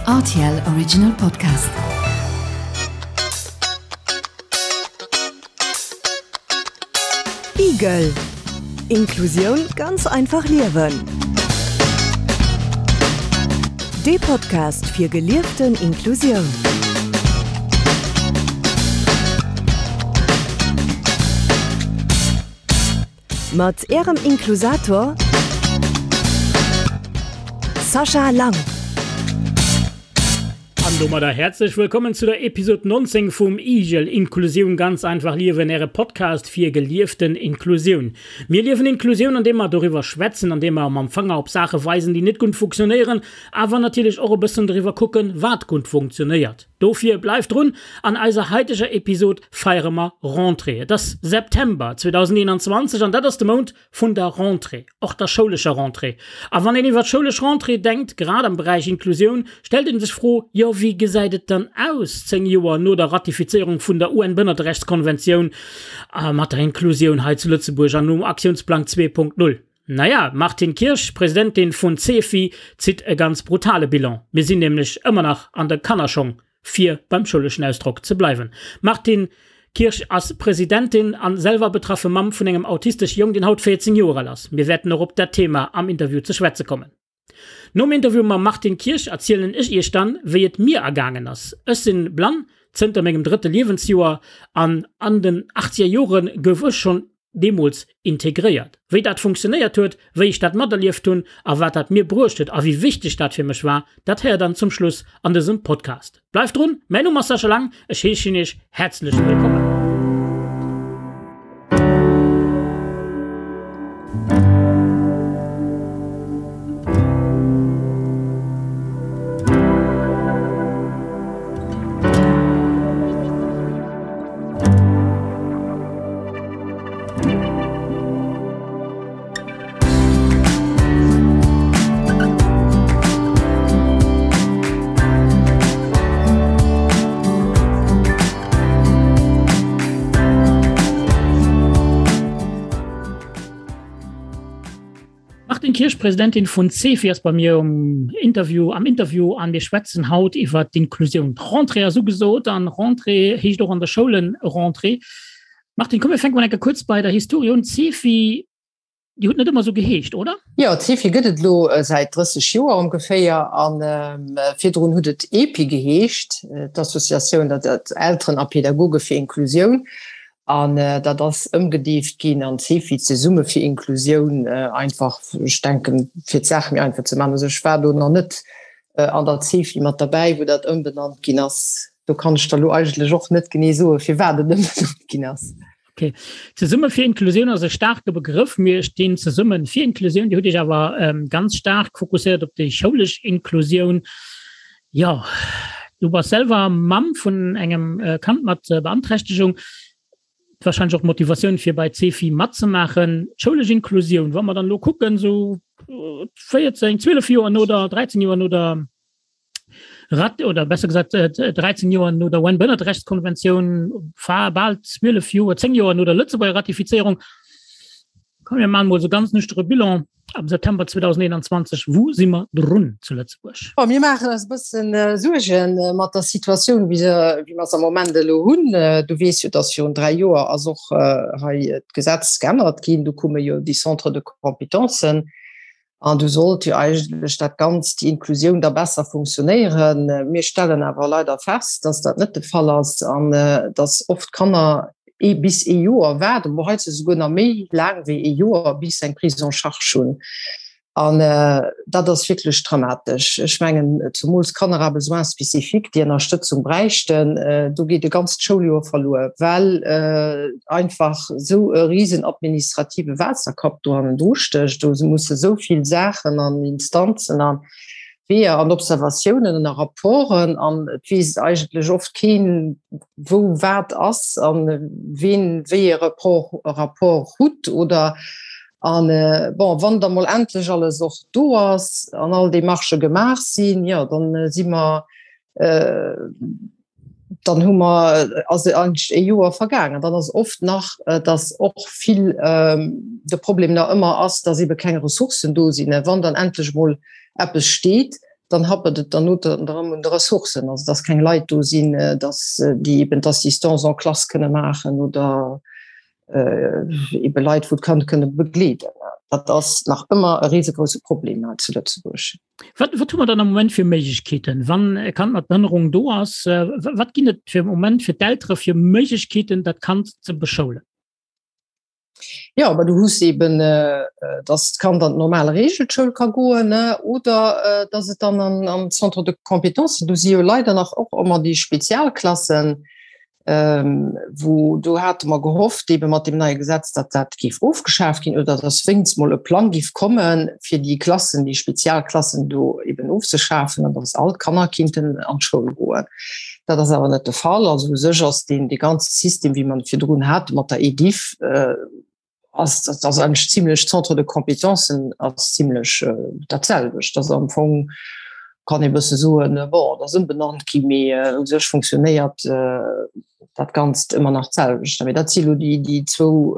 RTL Original Podcast. Igel Inklusioun ganz einfach liewen. Dee Podcast fir gelieften Inklusioun. Mat Ärem Inklusator Sascha Lang. An domadder häerzlech wëllkommen zu der Episode 19 vum IGEL, Inklusioun ganz einfach liewen, Äre Podcast fir gelieften Inklusioun. Mir liewen Inklusioun, andeem mer doriwwer schwätzen, andeem mer mam Fanger op Saache weisen, déi net gutt funktionéieren, awer natierlech och e bëssen doriwwer kucken, wat gutt funktionéiert. Dofir bleift drun, an eiser haiteger Episod feiere mer Rentrée. Et ass September 2021 an dat ass de Mount vun der Rentrée, och der schoulescher Rentrée. A wann een iwwer d'schoulesch Rentrée denkt, grad am Beräich Inklusioun, stellt een sech d'Fro, jo wéi gesäit et dann aus 10 Joer no der Ratifizéierung vun der UN-Bënnerterechtskonventioun mat der Inklusioun hei zu Lëtzebuerg an nom Aktiounsplang 2.0? Naja, d'Martine Kirsch, Presidentin vun CEFI, zitt e ganz brutale Bilan. Mir sinn nämlech ëmmer nach an de Kannerschong, fir beim schouleschen Ausdrock ze bleiwen. D'Martine Kirsch ass Presidentin an selwer betraffe Mamm vun engem autistesche Jong, deen haut 14 Joer al ass. Mir wäerten och op dat Thema am Interview ze schwätze kommen. Nom Interview mam Martine Kirsch erzielen ech iech dann, wéi et mir ergaangen ass. Ech sinn blann zënter mengem drëtte Liewensjoer an an den achtzeger Jore gouf ech schonn deemools integréiert. Wéi dat funktionéiert huet, wéi ech dat materlieft hunn a wat dat mir bruecht huet a wéi wichteg dat fir mech war, dat héiert dann zum Schluss an dësem Podcast. Bleift drun, mäin Numm ass Sascha Lang, ech heeschen iech häerzlech wëllkommen. Martine Kirsch, Presidentin vun CEFI, ass bei mir um Interview, am Interview an mir schwätzen haut iwwer d'Inklusioun. D'Rentrée ass ugesot an Rentrée heescht och an der Schoulen Rentrée. Martine, komm mir fänke mol enke kuerz bei der Historie un. D'CEFI, Dir hutt net ëmmer esou geheescht, oder? Jo, d'CEFI gëtt et elo säit 30 Joer ongeféier a virdrun hutt et EPI geheescht, d'Associatioun der Elteren a Pädagoge fir Inklusioun. An dat ass ëmgedeeft ginn an CEFI, Zesumme fir Inklusioun, einfach, ech denken, fir d'Saach méi einfach ze maachen. Also ech war do nach net an der CEFI mat derbäi, wou dat ëmbenannt ginn ass. Do kann ech der elo eigentlech och net genee soen, firwat et ëmbenannt ginn ass. Okay. Zesumme fir Inklusioun ass e staarke Begrëff. Mir stinn zesumme fir Inklusioun. Dir hutt Iech awer ähm, ganz staark fokusséiert op déi schoulesch Inklusioun. Jo, du bass selwer Mamm vun engem äh, Kand mat äh, Beanträchtegung. Wahrscheinlech och d'Motivatioun fir bei CEFI matzemaachen. D'schoulesch Inklusioun, wa mer dann elo kucken, sou 14, 12 Joer no der, 13 Joer no der Rat oder besser gesagt 13 Joer no der UN-Bënnerterechtskonventioun, bal 12 Joer, 10 Joer no der Lëtzebuerger Ratifizéierung, komm mir maachen emol esou ganz nüchtere Bilan am September 2021, Wou si mer drun zu Lëtzebuerg? Bon, mir maachen eis e bëssen Suerge mat der Situatioun, wéi se, wéi mer se am Moment elo hunn. Du weess jo, dass virun 3 Joer ass och hei d'Gesetz geännert ginn. Do kumme jo déi Centres de compétences. An du sollt jo eigentlech dat Ganzt, déi Inklusioun da besser funktionéieren. Mir stellen awer leider fest, dass dat net de Fall ass an dass oft Kanner ee bis ee Joer waarden, bon heiansdo souguer nach méi laang wéi ee Joer, bis se eng Prise en charge hunn. An dat ass wierklech dramatesch. Ech mengen, zumools Kanner à besoins spécifiques, déi Ënnerstëtzung bräichten, do geet e ganzt Schouljoer verluer, well einfach esou e risen administrative Waasserkapp do hannendru stécht. Do musse esou vill Saachen an Instanzen a Weeër an Observatiounen a Rapporten an et weess eigentlech oft keen, wou wat ass a ween wéi e Rapport hutt oder an bon, wann da mol endlech alles och do ass an all Demarchë gemaach sinn, jo dann si mer dann hu mer ass eigentlech e Joer vergaangen. Dann ass oft nach, dass och vill de Problem nach ëmmer ass, dass ebe keng Ressourcen do sinn. Wann dann endlech emol eppes steet, Dann happert et dann erëm un de Ressourcen, also dass keng Leit do sinn, dass déi eben d'Assistance en classe kënne maachen oder ebe Leit, wou d'Kand kënne begleeden. Dat ass nach ëmmer e risegrousse Problem hei zu Lëtzebuerg. Wat, wat hu mer dann am Moment fir Méiglechkeeten, wann e Kand mat Behënnerung do ass? Wat ginn et fir Moment fir d'Eltere fir Méiglechkeeten, dat Kand ze beschoulen? Ja, aber du hues eben, äh, dass d'Kand an d'normal Regelschoul ka goen, ne, oder äh, dass et dann an, an Centre de Compétences, do si jo leider nach och ëmmer déi Spezialklassen, ähm, wou do hate mer gehofft, eben mat dem neie Gesetz, datt dat géif ofgeschaaft ginn oder dass wéinst mol e Plang géif kommen, fir déi Klassen, déi Spezialklassen do eben ofzeschafen an dass all d'Kanner kinnten an d'Schoul goen. Dat ass awer net de Fall. Also u sech ass deen dee ganze System, wéi mer en virdrun hate mat der EDIF, ass dat ass eigentlech zimlech Centre de compétences ass zimlech dat selwecht. Dat ass am Fong kann ee bësse soen, bon, dat ass ëmbenannt gi, mee u sech funktionéiert dat Ganzt ëmmer nach d'selwecht. Mee dat si lo déi déi zwou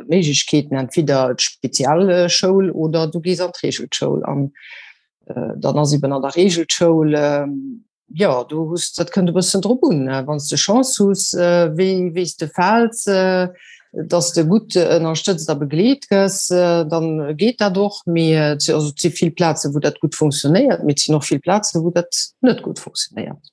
Méiglechkeeten, entweder d'Spezialschoul oder du gees an d'Reegelschoul. An dann ass eben an der Reegelschoul, Jo, du hues, dat kënnt e bëssen drop un, wann s de Chance hues, wéi wéi s de fäls, datt s de gutt ënnerstëtzt a begleet gëss, dann geet dat och. Mee et si also et si vill Plazen, wou dat gutt funktionéiert, mee et sinn och vill Plazen, wou dat net gutt funktionéiert.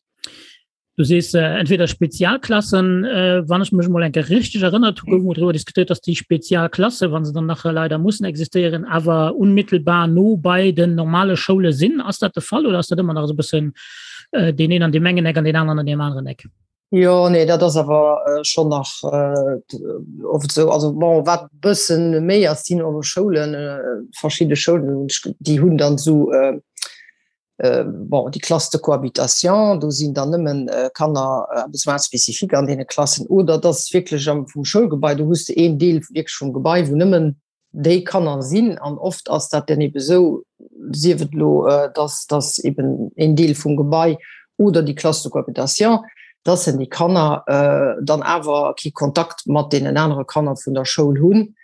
Du sees entweder Spezialklassen, wann ech mech emol eng Kéier richteg erënnert hu gouf emol driwwer diskutéiert, datt déi Spezialklasse, wa se dann nach leider mussen existéieren, awer unmittelbar no bei den normale Schoule sinn. Ass dat de Fall oder ass dat ëmmer nach esou e bëssen deen een an deem engen Eck an deen aneren an deem aneren Eck? Jo, nee, dat ass awer schonn nach oft esou. Also bon, wat e bëssen méi ass, sinn och Schoulen, verschidde Schoulen, déi hunn dann esou, bon, déi Classes de cohabitation, do sinn dann nëmmen Kanner à besoins spécifiques an deene Klassen, oder et ass wierklech am vum Schoulgebai, do hues de een Deel wierklech vum Gebai, wou nëmmen déi Kanner sinn. An oft ass dat dann ebe sou, sief et elo, dass dass eben een Deel vum Gebai oder déi Classe de cohabitation, dass en déi Kanner dann awer kee Kontakt mat deenen anere Kanner vun der Schoul hunn,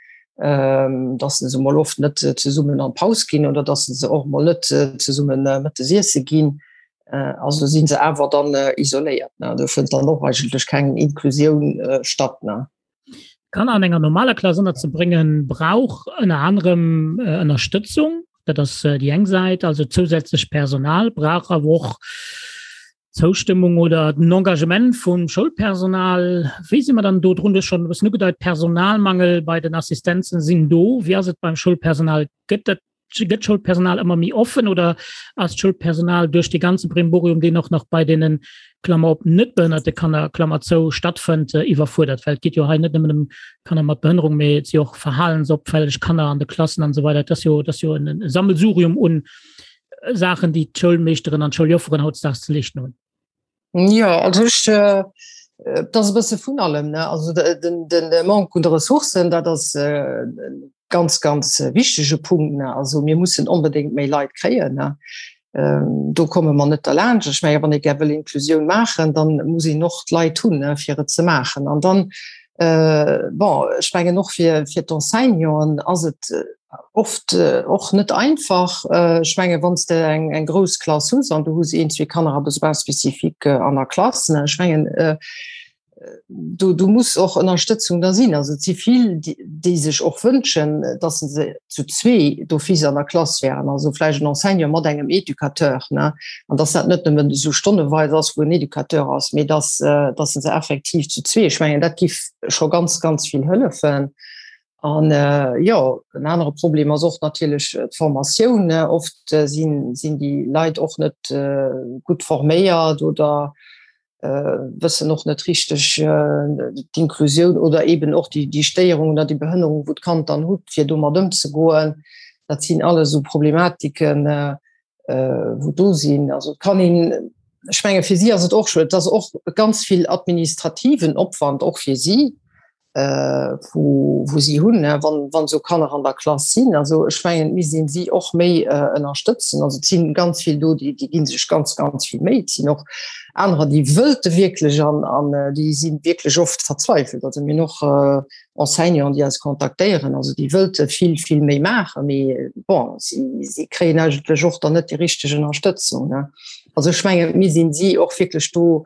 dass se mol oft net zesummen an d'Paus ginn oder dass se och mol net zesumme mëttes iesse ginn. Also si se awer dann isoléiert. Do fënnt dann och eigentlech keng Inklusioun statt. Kanner an enger normaler Klass ënnerzebréngen, brauch ënner anerem Ënnerstëtzung. Dat ass déi eng Säit, also zousätzlech Personal, brauch awer och Zoustëmmung oder den Engagement vum Schoulpersonal. Wéi si mer dann do drun? Du hues schonn e bëssen ugedeit, Personalmangel bei den Assistenzen sinn do. Wéi ass et beim Schoulpersonal? Gëtt dat, gëtt d'Schoulpersonal ëmmer méi offen oder ass d'Schoulpersonal duerch dee ganze Brimborium, deen och nach bei deenen, Klammer op, net behënnerte Kanner, Klammer zou, stattfënnt, iwwerfuerdert? Well et geet jo hei net nëmmen ëm Kanner mat Behënnerung, mee et si och verhalensopfälleg Kanner an de Klassen an esou weider. Et ass jo, et ass jo en Sammelsurium un Saachen, déi d'Schoulmeeschteren an d'Schouljofferen hautdesdaags ze leeschten hunn? Jo, also ech, et ass e bësse vun allem, ne. Also den, den Manque un de Ressourcen, dat ass e ganz, ganz wichtege Punkt, ne. Also mir mussen onbedéngt méi Leit kréien, ne. Do komme mer net derlaanscht. Ech menge wann ee gär wëll Inklusioun maachen, dann muss een och d'Leit hunn, ne, fir et ze maachen. An dann, bon, ech mengen och fir, fir d'Enseignanten ass et oft och net einfach. Ech menge wann s de eng eng grouss Klass hues an du hues een, zwee Kanner à besoins spécifiques an der Klass, ne, ech mengen do do muss och Ënnerstëtzung da sinn. Also et si vill, déi sech och wënschen, datt se zu zwee d'office an der Klass wären, also vläicht en Enseignant mat engem Educateur, ne, an datt dat net nëmmen esou stonneweis ass, wou en Educateur ass, mee datt datt se effektiv zu zwee, ech mengen dat giff scho ganz, ganz vill hëllefen. An jo, en anere Problem ass och natierlech d'Formatioun. Oft sinn sinn déi Leit och net gutt forméiert oder wëssen och net richteg d'Inklusioun oder eben och déi déi Stéierung oder déi Behënnerung, wou d'Kand dann hutt, fir domat ëmzegoen. Dat sinn alles esou Problematiken, wou do sinn. Also et kann een, ech menge fir si ass et och scho, et ass och ganz vill administrativen Opwand och fir si. Wou, wou si hunn, wann, wann esou Kanner an der Klass sinn. Also ech mengen, et misst een si och méi ënnerstëtzen. Also et sinn ganz vill do, déi, déi gi sech ganz, ganz vill Méi. Et sinn och anerer, déi wëlte wierklech an, an déi si wierklech oft verzweifelt. Also mir hunn och Enseignanten, déi eis kontaktéieren, also déi wëlte vill, vill méi maachen, mee bon, si, si kréien eigentlech och dann net déi richteg Ënnerstëtzung. Also ech mengen, et misst een si och wierklech do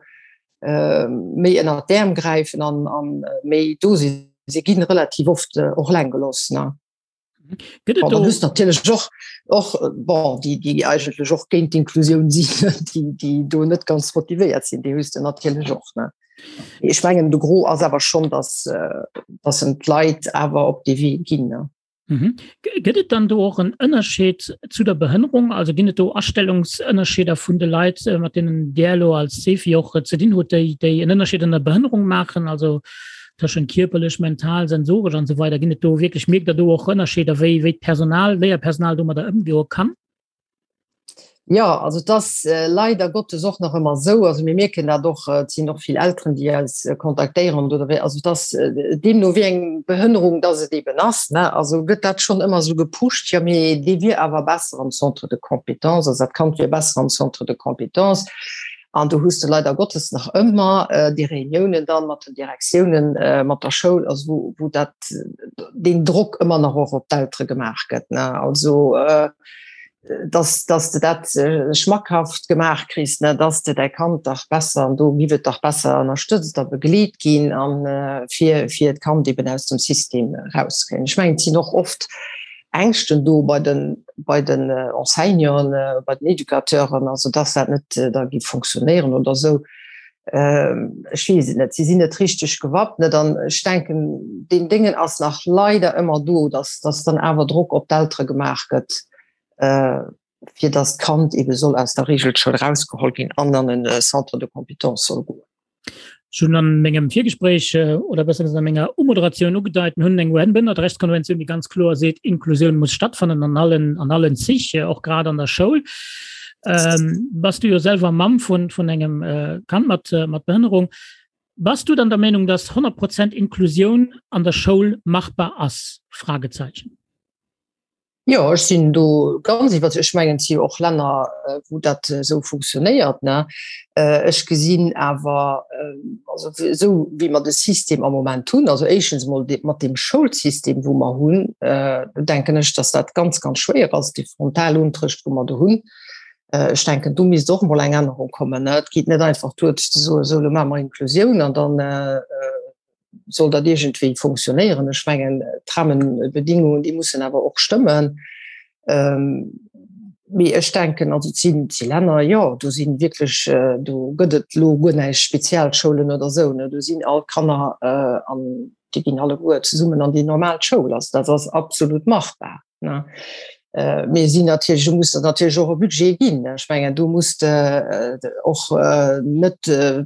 méi ënner d'Äerm gräifen an, an méi do sinn. Si ginn relativ oft och eleng gelooss. Ne? Gëtt et do natierlech och och bon, déi, déi eigentlech och géint d'Inklusioun sinn, déi, déi do net ganz motivéiert sinn, déi hues de natierlech och. Ne? Ech mengen de Gros ass awer schonn, dass, dass en d'Leit awer op dee Wee ginn. Ne? Mhm. Gëtt et dann do och en Ënnerscheed zu der Behënnerung? Also ginn et do Astellungsënnerscheeder vun de Leit, äh, mat deenen Dir elo als Cefi och äh, ze dinn hutt, déi, déi en Ënnerscheed an der Behënnerung maachen, also tëschent kierperlech, mental, sensoresch an esou weider? Ginn et do wierklech, mierkt Der do och Ënnerscheeder, wéi, wéi d'Personal, Léierpersonal domadder ëmgoe kann? Jo, also et ass leider Gottes och nach ëmmer esou, also mir mierken dat och, et sinn och vill Elteren, déi eis kontaktéieren oder wéi, also et ass deemno wéi eng Behënnerung dass et eeben ass, ne, also gëtt dat schonn ëmmer esou gepusht, jo mee dee wier awer besser am Centre de compétences, also dat Kand wier besser am Centre de compétences. An do hues de leider Gottes nach ëmmer déi Reuniounen dann mat den Direktiounen, mat der Schoul, also wou, wou dat, deen Drock ëmmer nach och op d'Eltere gemaach gëtt, ne, also. dass, dass de dat schmackhaft gemaach kriss, ne, dass de däi Kand dach besser, an do giff et dach besser ënnerstëtzt a begleet ginn an fir, fir d'Kand eben aus dem System erauszekréien. Ech mengen, et sinn och oft Ängschten do bei den, bei den Enseignanten, bei den Educateuren, also dass dat net da giff funktionéieren oder esou. Ech weess et net, si sinn net richteg gewappnet an ech denken, deen Déngen ass nach leider ëmmer do, dass, dass dann awer Drock op d'Eltere gemaach gëtt, fir dass d'Kand eebe soll aus der Reegelschoul erausgeholl ginn an an e Centre de compétences soll goen. Ech hunn an mengem Virgespréich, oder besser gesot a menger Umoderatioun ugedeit, mir hunn eng UN-Bëndertrechtskonventioun, déi ganz kloer seet, Inklusioun muss stattfannen an allen, an allen Zich, och grad an der Schoul. Ähm, bass du jo selwer Mamm vun, vun engem äh, Kand mat, äh, mat Behënnerung. Bass du dann der Meenung, dass 100 Prozent Inklusioun an der Schoul machbar ass? Fragezeichen. Jo, ech sinn do ganz iwwer. Ech mengen, et si jo och Länner, äh, wou dat esou funktionéiert. Ne? Äh, ech gesinn awer, äh, also esou wéi mer de System am Moment hunn, also éischtens emol de, mat deem Schoulsystem, wou mer hunn, äh, denken ech, dass dat ganz, ganz schwéier ass, dee Frontalunterricht, wou mer do hunn. Äh, ech denken, do misst och emol eng Ännerung kommen. Ne? Et geet net einfach duer ze soen, esou, elo maache mer Inklusioun an dann äh, soll dat iergendwéi funktionéieren. Ech mengen, d'Rahmenbedingungen, déi mussen awer och stëmmen. Ähm, mee ech denken, also et sinn, et si Länner, jo, do si wierklech, do gëtt et elo guer näischt Spezialschoulen oder esou, ne, do sinn all d'Kanner an déi ginn alleguer zesummen an déi normal Schoul. Also dat ass absolut machbar, ne. Mee sinn natierlech, do muss der natierlech och e Budget ginn. Ech mengen, do muss de och net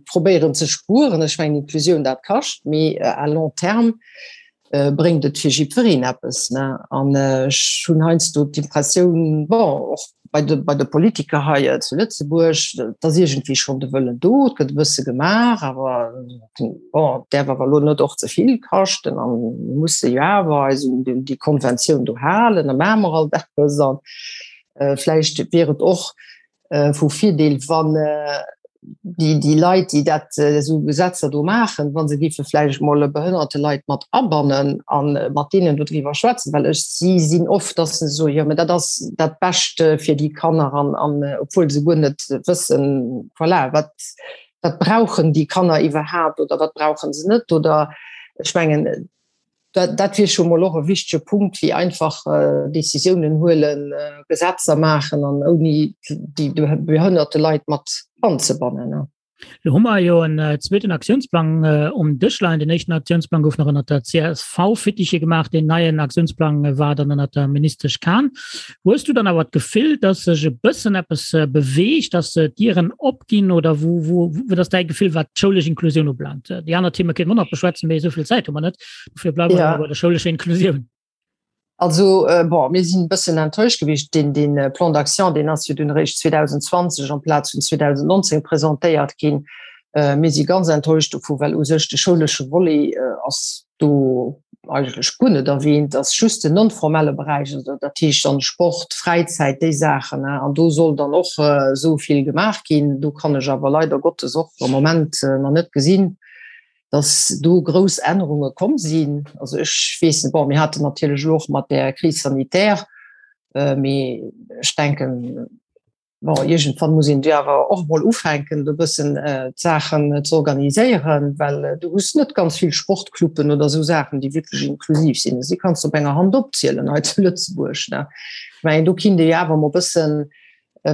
probéieren ze spueren. Ech mengen, Inklusioun, dat kascht, mee à long terme bréngt et fir jiddwereen eppes. Ne? An ech hunn heiansdo d'Impressioun, bon, och bei de, bei de Politiker hei äh, zu Lëtzebuerg, dass iergendwéi schonn de Wëllen do, et gëtt e bësse gemaach, awer bon, et däerf awer elo net och ze vill kaschten an mir musse jo awer eis un déi Konventioun do halen, da maache mer alt eppes an äh, vläicht wier et och vu Virdeel, wann déi, déi Leit, déi dat esou Gesetzer do maachen, wa se géife vläicht mol behënnerte Leit mat abannen a mat deenen dodriwwer schwätzen, well ech, si sinn oft, dass se soen, jo, mä dat ass dat Bescht fir déi Kanner an, an obwuel se guer net wëssen, voilà, wat, wat brauchen déi Kanner iwwerhaapt oder wat brauche se net oder ech mengen, Dat, dat wier scho mol och e wichtege Punkt, wéi einfach Decisiounen huelen, Gesetzer maachen an ouni déi behënnerte Leit mat anzebannen. Lo hu mer jo en zweeten Aktiounsplang um Dësch leien. Den éischten Aktiounsplang gouf nach ënnert der CSV-Fittiche gemaach. Deen neien Aktiounsplang war dann ënnert der Ministesch Kahn. Hues du dann awer d'Gefill, dass sech e bëssen eppes beweegt, dass d'Dieren opginn oder wou, wou, wat ass däi Gefill, wat d'schoulesch Inklusioun ubelaangt? Déi aner Theme kéinte mer och nach beschwätzen, mee esou vill Zäit hu mer net. Dofir bleiwe mer ja. bei der schoulescher Inklusioun. Also äh, bon, mir sinn e bëssen enttäuscht gewiescht. Den, den äh, Plan d'action, deen ass jo dunn eréischt 2020 amplaz vun 2019 presentéiert ginn. Äh, mir si ganz enttäuscht dovu, well u sech de schoulesche Volet äh, ass. Do eigentlech guer net erwähnt, ass just den non-formelle Beräich, also dat heescht dann Sport, Fräizäit, déi Saachen. An do soll dann och esou vill gemaach ginn. Do kann ech awer leider Gottes och am Moment nach net gesinn, dass do grouss Ännerunge komm sinn. Also ech weess net, bon, mir haten natierlech elo och mat där Crise sanitaire, mee ech denken, Bon, iergendwann muss een jo awer och emol ufänken, do e bëssen d'Saachen ze organiséieren, well du hues net ganz vill Sportcluben oder esou Saachen, déi wierklech inklusiv sinn. Si kanns du op enger Hand opzielen hei zu Lëtzebuerg. Ne? Ech mengen, do kinnt ee jo awer emol e bëssen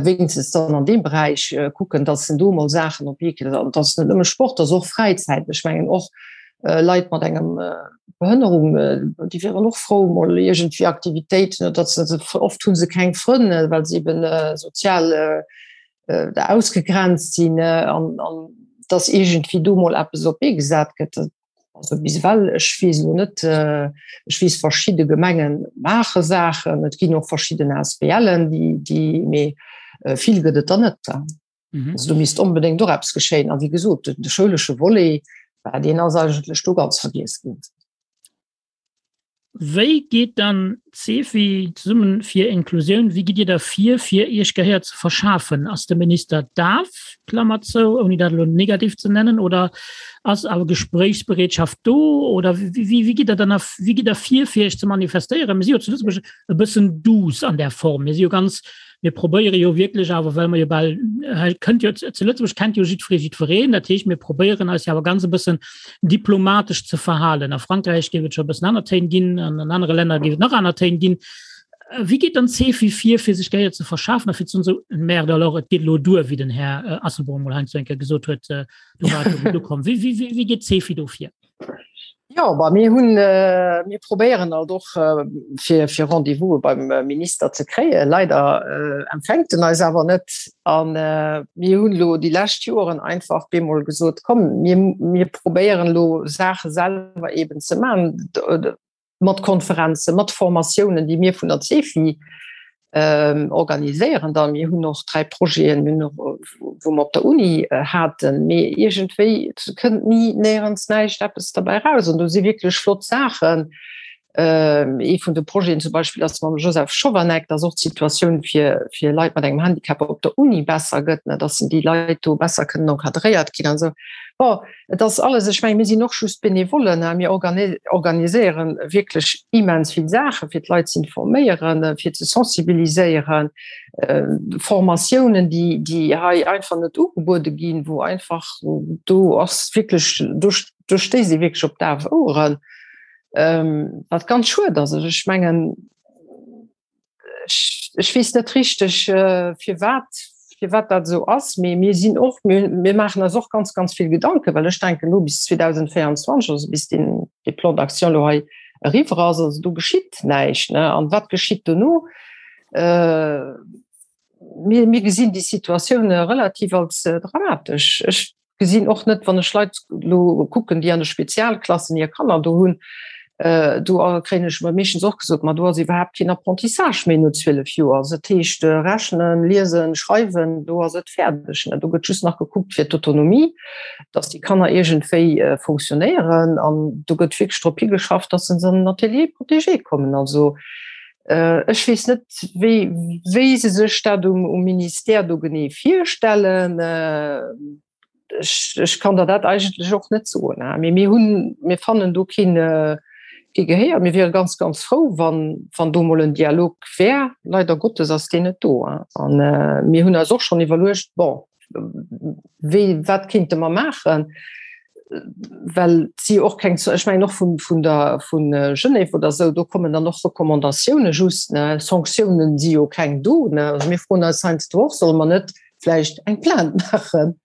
wéinstens dann an deem Beräich kucken, datt en do emol Saachen op d'Bee kritt. An et ass net nëmme Sport, et ass och Fräizäit. Ech mengen och Leit mat engem Behënnerung, déi wieren och frou mol iergendwéi Aktivitéiten, oder datt se, oft hu se keng Frënn, well se eben sozial ausgegrenzt sinn, an datt iergendwéi do mol eppes op d'Bee gesat gëtt. Also bis ewell, ech weess elo net, ech weess verschidde Gemenge maache Saachen, et ginn och verschidden ASBLen, déi, mee vill gëtt et der net. Mhm. Also do misst onbedéngt och eppes geschéien. A wéi gesot, de schoulesche Volet, deen ass eigentlech do ganz vergiess ginn. Wéi geet dann d'CEFI, Zesummen fir Inklusioun, wéi gitt Dir da vir, fir Iech Gehéier ze verschafen? Ass de Minister daf, Klammer zou, ouni dat elo negativ ze nennen, oder ass awer Gespréichsbereetschaft do? Oder wéi gitt Der dann wéi gitt Der vir, fir Iech ze manifestéieren? Mir si jo zu Lëtzebuerg e bëssen douce an där Form. Mir si jo ganz Mir probéiere jo wierklech awer, well mer jo bal, hei kënnt jo, zu Lëtzebuerg kennt jo jiddweree jiddwereen, dat heescht, mir probéieren eis jo awer ganz e bëssen diplomatesch ze verhalen. A Frankräich géif et scho e bëssen aner Téin ginn, an an anere Länner géif et nach aner Téin ginn. Wéi geet dann d'CEFI vir, fir sech Gehéier ze verschafen a fir ze soen, esou, merde alors, et geet elo duer, wéi den Här Asselborn emol heiansdo eng Kéier gesot huet, do war et elo gutt ukomm. Wéi, wéi, wéi geet d'CEFI do vir? Jo, bah, mir hunn, mir probéieren alt och fir, fir Rendez-vouse beim Minister ze kréien. Leider empfänkt en eis awer net. A mir hunn elo déi lescht Joren einfach bemol gesot, komm, mir, mir probéieren elo Saache selwer eben ze maachen. mat Konferenzen, mat Formatiounen, déi mir vun der CEFI organiséieren dann. Mir hunn och 3 Projeten, wou mer op der Uni haten, mee iergendwéi kënnt ni néierens näischt eppes derbäi raus. An do si wierklech flott Saachen. Ee vun de Projeten zum Beispill ass mam Joseph Schovanec, dass och d'Situatioun fir fir Leit mat engem Handicap op der Uni besser gëtt, dass déi Leit do besser kënnen encadréiert ginn an esou. Bon, Et ass alles, ech mengen, mir sinn och just Benevollen, mir organiséieren wierklech immens vill Saachen, fir d'Leit ze informéieren, fir ze sensibiliséieren, Formatiounen, déi, déi hei einfach net ugebuede ginn, wou einfach do ass wierklech, do, do stéisst ee wierklech op daf Oueren, wat ganz schued ass. Also ech mengen, ech, ech weess net richteg äh, firwat firwat dat esou ass, mee mir sinn och mir, mir maachen eis och ganz ganz vill Gedanken, well ech denken lo bis 2024, also bis den de Plan d'action lo hei eriwwer ass, also do geschitt näischt ne an wat geschitt dono? Äh, mir, mir gesinn déi Situatioun relativ als dramatesch. Ech gesinn och net, wann ech Leit lo kucken, déi an de Spezialklassen hir Kanner do hunn, do kréien ech meeschtens och gesot, ma do ass iwwerhaapt keen Apprentissage méi no 12 Joer. Also dat heescht rechnen, liesen, schreiwen, do ass et fäerdeg. Do gëtt just nach gekuckt fir d'Autonomie, datt déi Kanner iergendwéi fonctionnéieren an do gëtt wierklech drop higeschafft, datt se an den Atelier protégé kommen. Also ech weess net, wéi, wéi se sech dat um, um Ministère do genee virstellen. Ech, ech kann der dat eigentlech och net soen. Mee mir hunn, mir fannen do keen, kee Gehéier. Mir wiere ganz, ganz frou, wann, wann do mol en Dialog wär. Leider Gottes ass deen net do. An mir hunn eis och schonn iwwerluecht, bon, wéi, wat kéinte mer maachen? Well et si jo och keng, ech mengen och vun, vun der, vu Genève oder esou, do kommen dann och Recommandatioune just, ne? Sanktiounen si jo keng do, ne? Also mir froen eis heiansdo och, solle mer net vläicht eng Plainte maachen,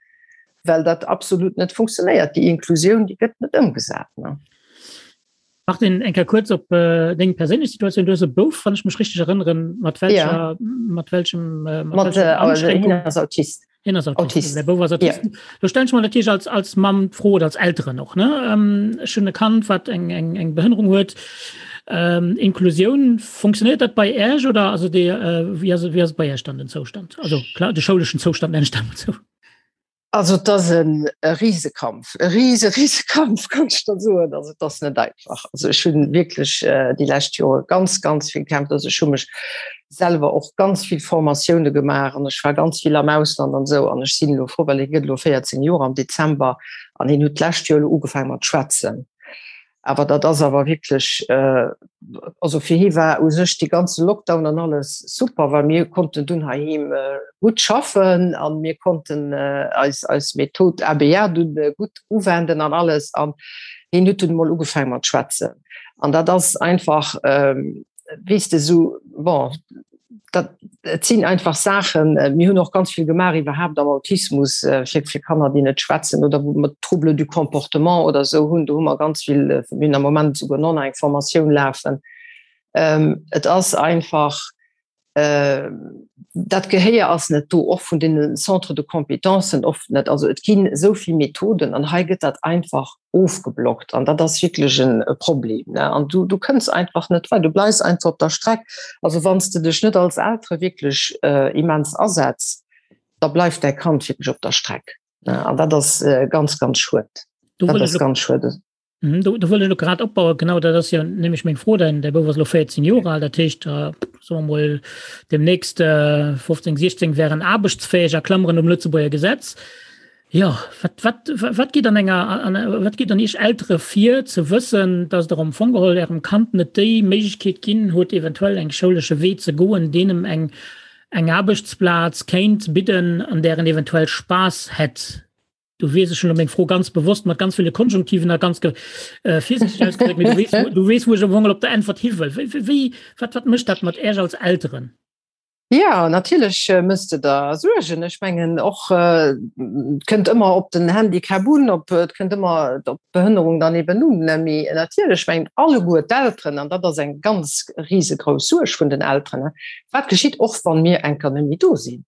well dat absolut net funktionéiert. Déi Inklusioun, déi gëtt net ëmgesat, ne? Martin, eng Kéier kuerz op äh, deng perséinlech Situatioun. Du hues e Bouf, wann ech mech richteg erënneren, mat welcher, ja. mat welchem, äh, mat, mat äh, also, hien ass Autist. Hien ass Autist. Autist. Der Bouf ass Autist. Ja. Du stell ich mal natierlech als, als Mamm d'Fro oder als Elteren och, ne? Ähm, ech hunn e Kand, wat eng, eng, eng Behënnerung huet. Ähm, Inklusioun, funktioniert dat bei Äech oder also de, äh, wie ass, wie ass bei Äech dann den Zoustand? Also klar, de schouleschen Zoustand nenne ich dat mal so. Also et ass e Risekampf, e rise Risekampf kann ech der soen. Also et ass net einfach. Also ech hunn wierklech déi lescht Jore ganz, ganz vill gekämpft. Also ech hu mech selwer och ganz vill Formatioune gemaach an ech war ganz vill am Ausland an esou an ech sinn elo frou, well hie gëtt elo 14 Joer am Dezember an hien huet d'lescht Joer elo ugefaange mat schwätzen. Awer dat ass awer wierklech, also fir hie war u sech dee ganze Lockdown an alles super, well mir konnten dunn heiheem gutt schaffen a mir konnten eis eis Method ABA dunn gutt uwenden an alles. An hien huet dunn emol ugefaange mat schwätzen. An dat ass einfach, weess de, esou, bon, dat et sinn einfach Saachen, mir hunn och ganz vill gemaach iwwerhaapt am Autismus fir fir Kanner, déi net schwätzen oder wou mer Troubles du comportement oder esou hunn. Do hu mer ganz vill, mir hunn am Moment esouguer nach eng Formatioun lafen. Et ass einfach, dat Gehéier ass net do, och vun deene Centres de compétencen oft net. Also et ginn esou vill Methoden an hei gëtt dat einfach ofgeblockt an dat ass wierklech en e Problem ne an du du kënns einfach net weider, du bleifs einfach op der Streck. Also wann s de dech net als Eltere wierklech äh, immens asetz, da bleift däi Kand wierklech op der Streck ne an dat ass äh, ganz ganz schued. Do dat ass ganz schued. Mhm, do, do wëll ech grad opbauen genau dat ass jo nämlech meng Fro dein der Bouf ass lo 14 Joer al, dat heescht äh, soe mer mol demnächst äh, 15 16 wären aarbechtsfäeg a Klammeren um Lëtzebuerger Gesetz. Jo, wat, wat, wat geet an enger, an, wat geet an Iech Eltere vir, ze wëssen, dass Der am Fong geholl Ärem Kand net déi Méiglechkeet ginn hutt, eventuell eng schoulesche Wee ze goen, deen em eng, eng Aarbechtsplaz kéint bidden, an där en eventuell Spaass hätt? Du weess, ech hunn elo meng Fro ganz bewosst mat ganz ville Konjunktiven a ganz ge, äh, virsiichteg ausgedréckt, mee du weess, du weess, wou ech am Fong geholl op der Äntwert hi wëll. Wéi, wéi, wat, wat mécht dat mat Äech als Elteren? Jo, natierlech mëss de der Suergen. Ech mengen och, et kënnt ëmmer op den Handicap un, op, et kënnt ëmmer op d'Behënnerung dann eben un. Mee natierlech mengen alleguer d'Elteren, an dat ass eng ganz risegrouss Suerg vun den Elteren, wat geschitt och wann mir eng Kéier net méi do sinn?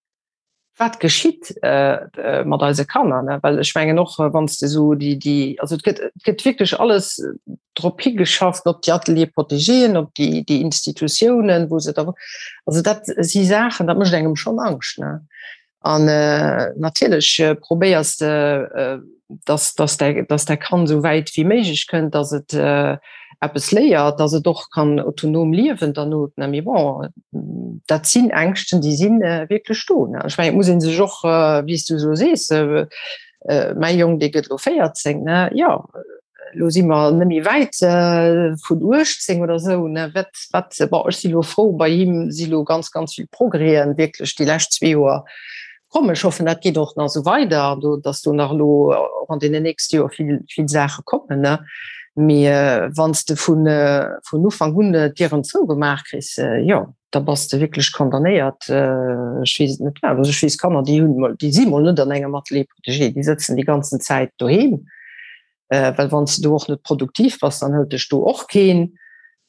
Wat geschitt mat eise Kanner? Well ech mengen och, wann s de esou déi, déi, also et gëtt, et gëtt wierklech alles drop higeschafft, op déi Ateliers protégéen, op déi, déi Institutiounen, wou se da, also dat si Saachen, dat mécht engem schonn Angscht, ne? An natierlech probéiers de, dass, dass däi, dass däi Kand esou wäit wéi méiglech kënnt, dass et eppes léiert, dass et och kann autonom liewen derno. Mee bon, dat sinn Ängschten, déi si wierklech do. Ech mengen, et muss ee sech och, wéi s du esou sees, mäi Jong, dee gëtt elo 14, ne, jo, elo si mer net méi wäit vun 18 oder esou, ne, wat, wat, bon, ech si elo frou, bei him si elo ganz, ganz vill Progrèsen wierklech déi lescht zwee Joer Komm, ech hoffen, dat geet och nach esou weider an do, dass do nach elo och an deenen nächste Joer vill, vill Saache kommen, ne. Mee wann s de vun, vun Ufank un d'Dieren zougemaach kriss, jo, da bass de wierklech condamnéiert. Ech weess et net wat. Also ech weess Kanner, déi hunn mol, déi si mol net an engem Atelier protégé, déi sëtzen déi ganzen Zäit doheem. Well wann s de do och net produktiv bass, dann hëlt dech do och keen.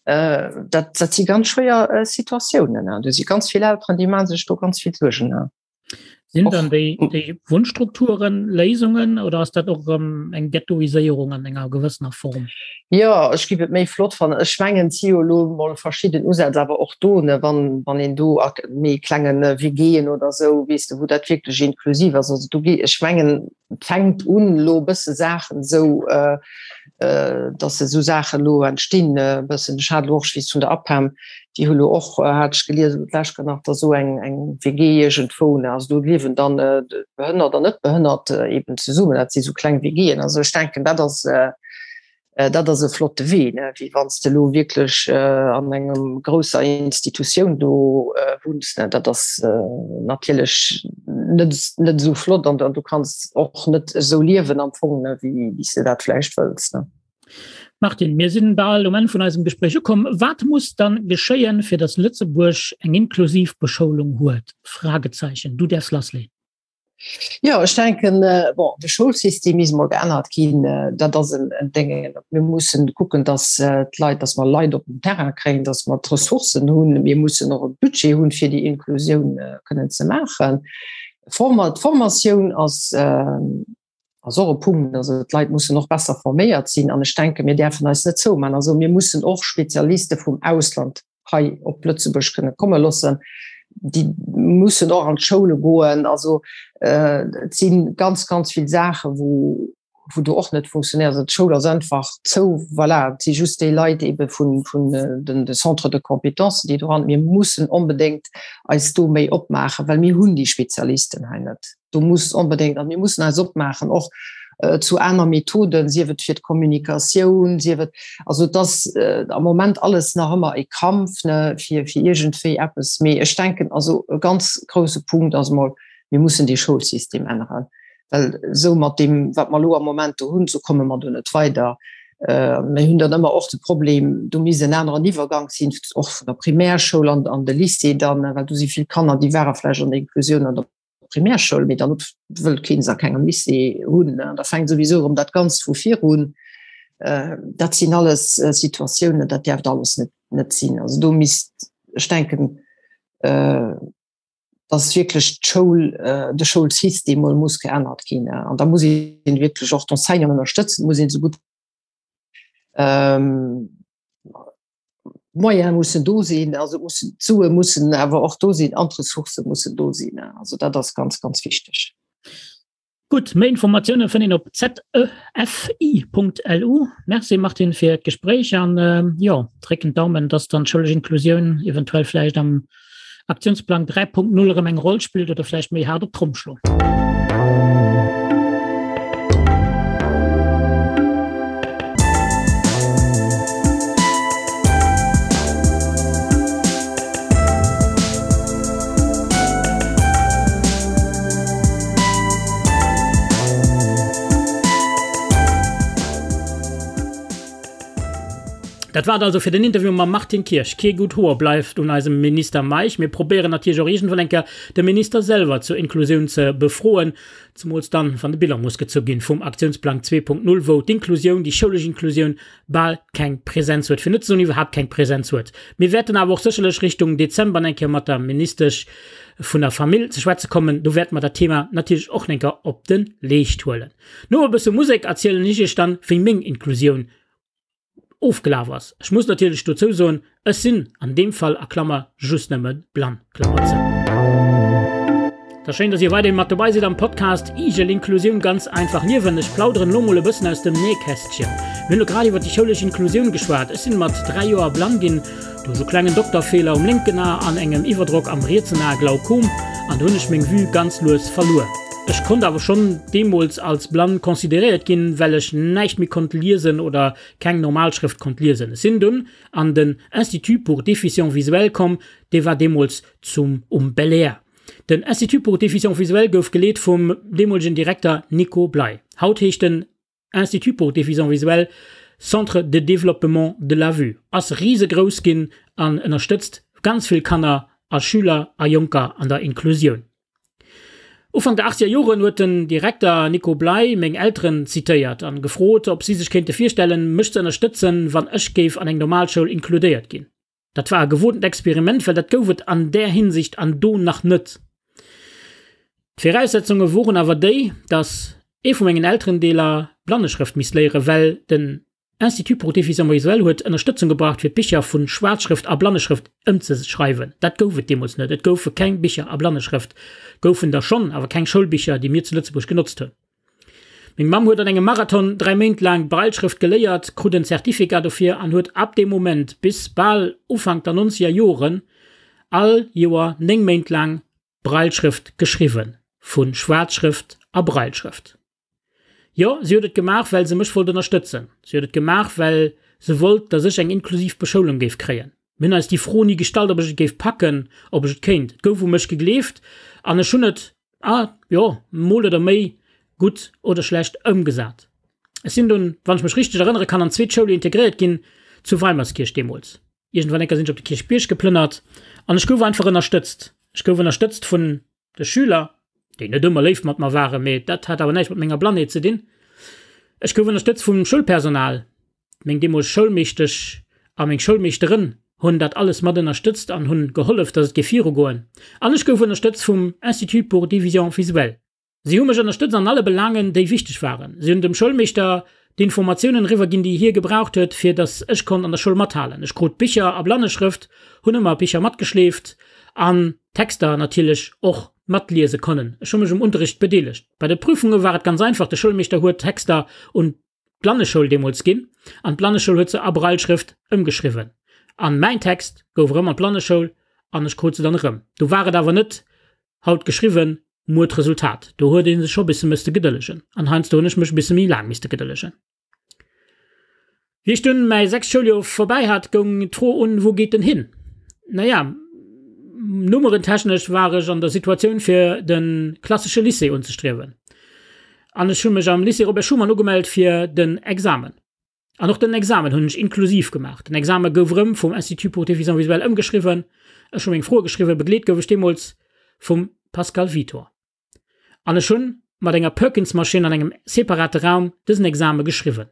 Dat, dat si ganz schwéier Situatiounen. Do si ganz vill Elteren, déi maache sech do ganz vill Suergen. Sinn dann déi, déi Wunnstrukturen Léisungen oder ass dat och erëm eng Ghettoiséierung an enger gewëssener Form? Jo, ech giff et méi flott fannen. Ech mengen, et si jo elo mol verschidden Usätz, awer och do, ne, wann, wann een do a méi klengen WGen oder esou, weess de, wou dat wierklech inklusiv ass. Also do gi, ech mengen, et fänkt un elo e bësse Saachen esou, dass esou Saachen elo entstinn e bëssen. Ech hat elo och, ech weess vun der APEM, déi hu elo och, hat ech gelies elo d'lescht Kéier nach, da esou eng eng WG iergendwou, ne, also do liewen dann Behënnert an Net-Behënnert eben zesummen, dat si sou kleng WGen. Also ech denken, dat ass dat ass e flotte Wee, ne, wéi wann s de elo wierklech an engem grousser Institutioun do wunns, ne, dat ass natierlech net net esou flott an du kanns och net esou liewen am Fong, ne, wéi wéi s de dat vläicht wëlls, ne. Martine, mir sinn bal um Enn vun eisem Gespréich ukomm. Wat muss dann geschéien, fir datt Lëtzebuerg eng inklusiv Beschoulung huet? Fragezeichen. Du däerfs lassleeën. Jo, ech denken, bon, de Schoulsystem misst mol geännert ginn. Dat ass en Déngen. Mir mussen kucken, datt d'Leit, datt mer Leit op den Terrain kréien, datt mer d'Ressourcen hunn. Mir mussen och e Budget hunn, fir déi Inklusioun kënnen ze maachen. D'Formatioun ass ass och e Punkt. Also d'Leit mussen och besser forméiert sinn. An ech denken, mir däerfen eis net zoumaachen. Also mir mussen och Spezialiste vum Ausland hei op Lëtzebuerg kënne komme loossen. Déi mussen och an d'Schoule goen. Also et si ganz, ganz vill Saache wou wou do och net funktionéiert. Also d'Schoul ass einfach zou, voilà, et si just déi Leit ebe vun vun den de Centres de compétences, déi do ran. Mir mussen onbedéngt eis do méi opmaachen, well mir hunn déi Spezialisten hei net. Do muss onbedéngt, an mir mussen eis opmaachen och zu aner Methoden, sief et fir d'Kommunikatioun, sief et, also et ass am Moment alles nach ëmmer e Kampf, ne, fir fir iergendwéi eppes. Mee ech denken, also e ganz grouse Punkt ass emol, mir mussen dee Schoulsystem änneren, well esou mat deem, wat mer elo am Moment do hunn, esou komme mer do net weider. Mir hunn dann ëmmer och de Problem, do misst en aneren Iwwergank sinn, och vun der Primärschoul an an de Lycée dann, well do si vill Kanner, déi ware vläicht an der Inklusioun an der Primärschoul, mee dann wëllt keen se a kengem Lycée hunn. Da fänkt souwisou erëm dat Ganzt vu vir un. Dat sinn alles Situatiounen, dat däerft alles net net sinn. Also do misst, ech denken, dass wierklech d'Schoul, de Schoulsystem mol muss geännert ginn. An da muss een wierklech och d'Enseignanten ënnerstëtzen, muss een esou gutt d'Moyene mussen do sinn, also mussen d'Sue mussen awer och do sinn an d'Ressourcë mussen do sinn. Also dat ass ganz, ganz wichteg. Gutt, méi Informatioune fënnt een op zefi.lu. Merci Martine fir d'Gespréich an jo, drécken d'Daumen, dass dann d'schoulesch Inklusioun eventuell vläicht am Aktiounsplang 3.0 erëm eng Roll spillt oder vläicht méi haart op d'Tromm schloen. Dat war et also fir den Interview mam Martine Kirsch. Kee gutt Hoer bleift un eisem Minister Meisch. Mir probéieren natierlech och iergendwann eng Kéier de Minister selwer zur Inklusioun ze befroen, zemools dann, wann de Bilan muss gezu ginn vum Aktiounsplang 2.0, wou d'Inklusioun, déi schoulesch Inklusioun, bal keng Präsenz huet, fir net ze soen iwwerhaapt keng Präsenz huet. Mir wäerten awer och sécherlech Richtung Dezember eng Kéier mat der Ministesch vun der Famill ze schwätze kommen. Do wäerte mer dat Thema natierlech och eng Kéier op de Leescht huelen. No e bësse Musek erzielen ech iech dann, wéi meng Inklusioun ofgelaf ass. Ech muss natierlech dozou soen, ech sinn an deem Fall a Klammer just nëmme blann, Klammer zou. Et ass schéin, dass dir weiderhin mat dobei sidd am Podcast Igel Inklusioun ganz einfach liewen. Ech plauderen elo mol e bëssen aus dem Nähkästchen. Mir hunn elo grad iwwer déi schoulesch Inklusioun geschwat. Ech sinn mat 3 Joer blann ginn, duerch e klengen Dokterfeeler um lénken A an engem Iwwerdrock am rietsen A, Glaukom, an do hunn ech meng Vue ganz lues verluer. Ech konnt awer schonn deemools als blann consideréiert ginn, well ech näischt méi konnt liesen oder keng normal Schrëft konnt liesen. Ech sinn dunn an den Institut pour déficients visuels komm, dee war deemools zum um Belair. Den Institut pour déficients visuels gouf geleet vum deemolegen Direkter Nico Bley. Haut heescht den Institut pour déficients visuels Centre de développement de la vue, ass risegrouss ginn an ënnerstëtzt ganz vill Kanner a Schüler a Jonker an der Inklusioun. Ufank der achtzeger Joren huet den Direkter Nico Bley meng Elteren zitéiert an gefrot, ob si sech kéinte virstellen, mech ze ënnerstëtzen, wann ech géif an eng Normalschoul inkludéiert ginn. Dat war e gewotent Experiment, well dat gouf et an där Hinsicht an do nach net. D'Viraussetzunge woren awer déi, dass ee vu mengen Elterendeeler Blanneschrëft misst léieren, well den Institut pour déficients visuels huet Ënnerstëtzung gebraucht fir d'Bicher vu Schwaarzschrëft a Blanneschrëft ëmzeschreiwen. Dat gouf et deemools net. Et goufe keng Bicher a Blanneschrëft, goufen der schonn, awer keng Schoulbicher, déi mir zu Lëtzebuerg genotzt hunn. Meng Mamm huet an engem Marathon 3 Méint laang d'Brailleschrëft geléiert, krut en Certificat dofir an huet ab deem Moment bis bal Ufank der nonzeger Joren all Joer 9 Méint laang Brailleschrëft geschriwwen, vu Schwaarzschrëft a Brailleschrëft. Jo, si huet et gemaach, well se mech wollt ënnerstëtzen. Si huet et gemaach, well se wollt, datt ech eng inklusiv Beschoulung géif kréien. Mir hunn eis déi Fro ni gestallt, ob ech et géif packen, ob ech et kéint. Et gouf u mech gegleeft an ech hunn et, ah jo, mol oder méi gutt oder schlecht ëmgesat. Ech sinn dunn, wann ech mech richteg erënnere kann, an d'zweet Schoul integréiert ginn, zu Weimerskirch deemools. Iergendwann enker sinn ech op de Kierchbierg geplënnert an ech gouf einfach ënnerstëtzt. Ech gouf ënnerstëtzt vun De Schüler, déi net ëmmer léif mat mer waren, mee dat hat awer näischt mat menger Blannheet ze dinn. Ech gouf ënnerstëtzt vum Schoulpersonal. Meng deemoleg Schoulmeeschtesch a meng Schoulmeeschterin hunn dat alles mat ënnerstëtzt an hunn gehollef, dass et géif virugoen. An ech gouf ënnerstëtzt vum Institut pour déficients visuels. Si hu mech ënnerstëtzt an alle Belaangen, déi wichteg waren. Si hunn dem Schoulmeeschter d'Informatiounen eriwwer ginn, déi hie gebraucht huet, fir datt ech konnt an der Schoul mathalen. Ech krut Bicher a Blanneschrëft, hunn ëmmer Bicher matgeschleeft. an d'Texter natierlech och matliese konnen. Ech hu mech um Unterricht bedeelegt. Bei de Prüfunge war et ganz einfach, de Schoulmeeschter huet d'Texter un d'Blanneschoul deemools ginn an d'Blanneschoul huet se a Brailleschrëft ëmgeschriwwen. An mäin Text gouf erëm an d'Blanneschoul an ech krut se dann erëm. Do war et awer net haut geschriwwen, muer d'Resultat. Do huet ee sech scho bisse mësste gedëllegen an heiansdo hunn ech mech e bisse méi laang misste gedëllegen. Wéi ech dunn mäi sechst Schouljoer vorbäi hat, goung d'Fro un, Wou geet en hin? Naja, nummerentechnesch war ech an der Situatioun fir de klassesche Lycée unzestriewen. An ech hu mech am Lycée Robert Schuman ugemellt fir den Examen. An och den Examen hunn ech inklusiv gemaach. Den Exame gouf erëm vum Institut pour déficients visuels ëmgeschriwwen. Ech hu meng Froe geschriwwen, begleet gouf ech deemools vum Pascal Vitor. An ech hunn mat enger Perkins-Maschinn an engem separate Raum dësen Exame geschriwwen.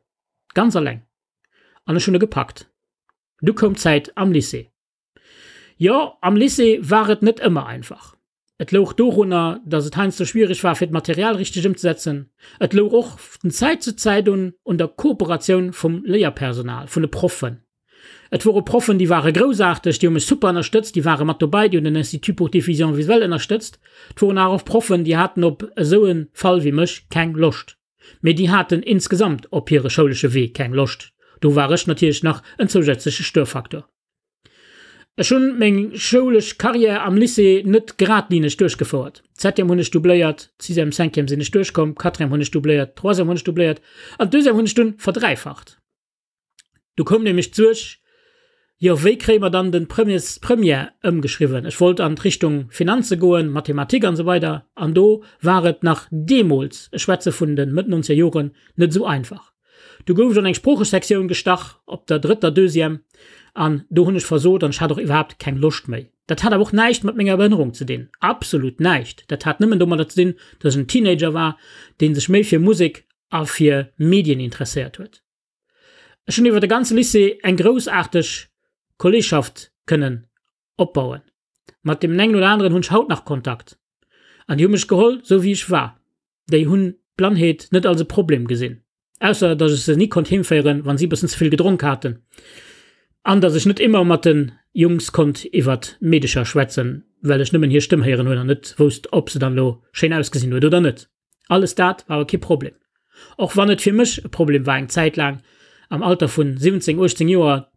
Ganz alleng. An ech hunn e gepackt. Du koum d'Zäit am Lycée. Jo, am Lycée war et net ëmmer einfach. Et louch dorunner, datt et heiansdo schwiereg war fir d'Material richteg ëmzesetzen. Et louch och vun Zäit zu Zäit un un der Kooperatioun vum Léierpersonal, vun de Proffen. Et wore Proffen, déi ware groussaarteg, déi hu mech super ënnerstëtzt, déi ware mat dobäi, déi hunn den Institut pour déficients visuels ënnerstëtzt. Et woren awer och Proffen, déi haten op esou e Fall wéi mech keng Loscht. Mee déi haten insgesamt op hire schoulesche Wee keng Loscht. Do war ech natierlech nach en zousätzleche Störfaktor. Ech hunn meng schoulesch Carrière am Lycée net geradlineg duerchgefouert. D'Septième hunn ech doubléiert, d'Sixième, Cinquième sinn ech duerchkomm, d'Quatrième hunn ech doubléiert, d'Troisième hunn ech doubléiert an d'Deuxième hunn ech dunn verdräifacht. Du koum nämlech d'Suerg, jo wéi kréie mer dann den Premiers, d'Première ëmgeschriwwen? Ech wollt an d'Richtung Finanze goen, Mathematik an esou weider an do war et nach deemools, ech schwätze vun de Mëtt nonzeger Joren, net esou einfach. Du gouf ech an eng Sproochesektioun gestach op der drëtter Deuxième an do hunn ech versot an ech hat och iwwerhaapt keng Loscht méi. Dat hat awer och näischt mat menger Behënnerung ze dinn, absolut näischt. Dat hat nëmmen domadder ze dinn, datt ech en Teenager war, dee sech méi fir Musek a fir Medien interesséiert huet. Ech hunn iwwer de ganze Lycée eng groussaarteg Kolleegschaft kënnen opbauen. Mat deem engen oder aneren hunn ech haut nach Kontakt. An déi hu mech geholl, sou wéi ech war. Déi hunn d'Blannheet net als e Problem gesinn. Ausser datt ech se ni konnt heemféieren, wann si e bëssen ze vill gedronk haten. An datt ech net ëmmer mat de Jungs konnt iwwert Meedecher schwätzen, well ech nëmmen hir Stëmm héieren hunn an net wousst, ob se dann elo schéin ausgesinn huet oder net. Alles dat war awer kee Problem. Och wann et fir mech e Problem war eng Zäit laang am Alter vun 17, 18 Joer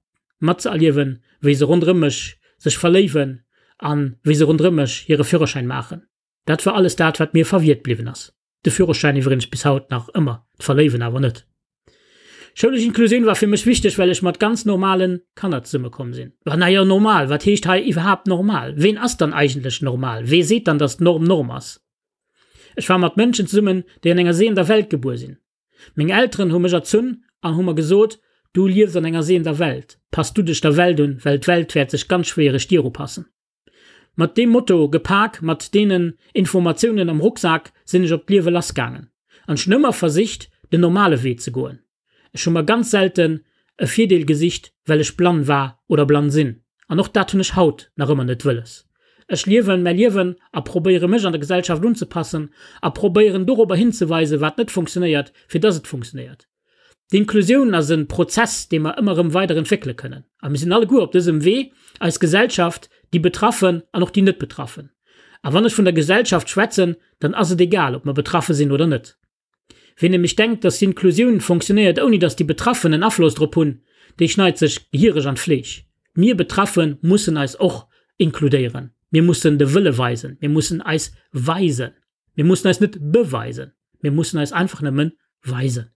matzeerliewen, wéi se ronderëm mech sech verléiwen an wéi se ronderëm mech hire Führerschäin maachen. Dat war alles dat, wat mir verwiert bliwwen ass. De Führerschäin iwwregens bis haut nach ëmmer, d'Verléiwen awer net. Schoulesch Inklusioun war fir mech wichteg, well ech mat ganz normalen Kanner zesummekomm sinn. Wa najo, normal, wat heescht hei iwwerhaapt normal? Ween ass dann eigentlech normal? Wee seet dann, dass d'Norm Norm ass? Ech war mat Mënschen zesummen, déi an enger sehender Welt gebuer sinn. Meng Elteren hu mech erzunn an hu mer gesot, Du liefs an enger sehender Welt, pass du dech der Welt un, well d'Welt wäert sech ganz schwiereg dir upassen. Mat deem Motto gepak, mat deenen Informatiounen am Rucksak sinn ech op d'Liewe lassgaangen. An ech hunn ëmmer versicht, den normale Wee ze goen. Ech hu mer ganz selten e Virdeel gesicht, well ech blann war oder blann sinn. An och dat hunn ech haut nach ëmmer net wëlles. Ech liewen mäi Liewen a probéiere mech an der Gesellschaft unzepassen a probéieren dorobber hinzeweisen, wat net funktionéiert, fir dass et funktionéiert. D'Inklusioun ass e Prozess, dee mer ëmmer erëm weider entwéckele kënnen. A mir sinn alleguer op dësem Wee, eis Gesellschaft, déi Betraffen an och déi Net-Betraffen. A wann ech vun der Gesellschaft schwätzen, dann ass et egal, ob mer betraffe sinn oder net. Ween nämlech denkt, dass d'Inklusioun fonctionnéiert ouni dass déi Betraffen en Afloss drop hunn, dee schneit sech gehiereg an d'Fleesch. Mir Betraffe mussen eis och inkludéieren. Mir mussen de Wëlle weisen. Mir mussen eis weisen. Mir mussen eis net beweisen. Mir mussen eis einfach nëmmen weisen.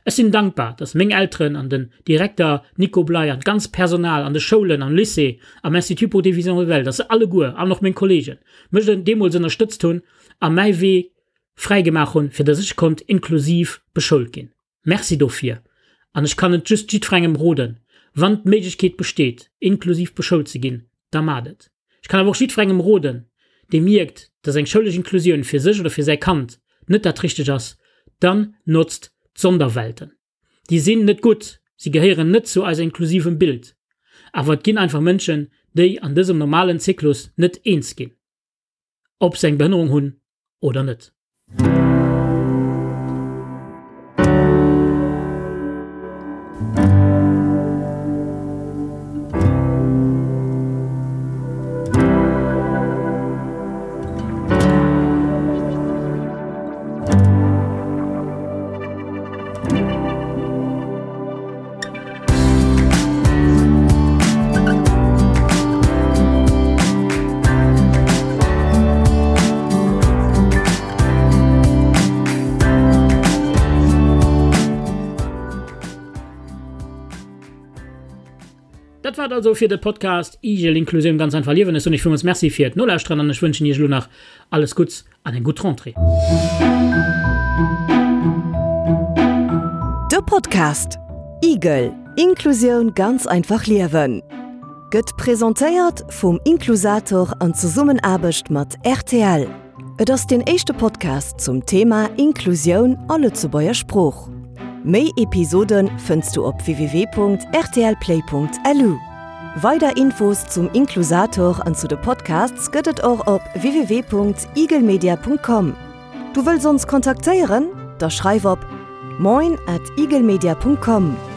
Ech sinn dankbar, dass meng Elteren an den Direkter Nico Bley an d'ganzt Personal an de Schoulen, am Lycée, am Institut pour déficients visuels, dass se alleguer, an och meng Kollegen, mech deemools ënnerstëtzt hunn a mäi Wee fräi gemaach hunn, fir dass ech konnt inklusiv beschoult ginn. Merci dofir. An ech kann et just jiddferengem roden, wann d'Méiglechkeet besteet, inklusiv beschoult ze ginn, da maacht et. Ech kann awer och jiddferengem roden, dee mierkt, dass eng schoulesch Inklusioun fir sech oder fir säi Kand net dat Richtegt ass, dann notzt d'Sonderwelten. Déi sinn net gutt, si gehéieren net zu eiser inklusivem Bild. Awer et ginn einfach Mënschen, déi an dësem normalen Zyklus net eens ginn. Ob se eng Behënnerung hunn oder net. war et also fir de Podcast Igel Inklusioun ganz einfach liewen. Ech soen iech villmools Merci fir d'Nolauschteren an ech wënschen iech elo nach alles Gutts an eng gutt Rentrée. De Podcast Igel, Inklusioun ganz einfach liewen gëtt presentéiert vum Inklusator an Zesummenaarbecht mat rtl. Et ass deen éischte Podcast zum Thema Inklusioun a Lëtzebuerger Sprooch. Méi Episode fënns du op www.rtlplay.lu. Weider Infos zum Inklusator an zu de Podcasts gëtt et och op www.eaglemedia.com. Du wëlls ons kontaktéieren? Da schreif op moin at eaglemedia.com.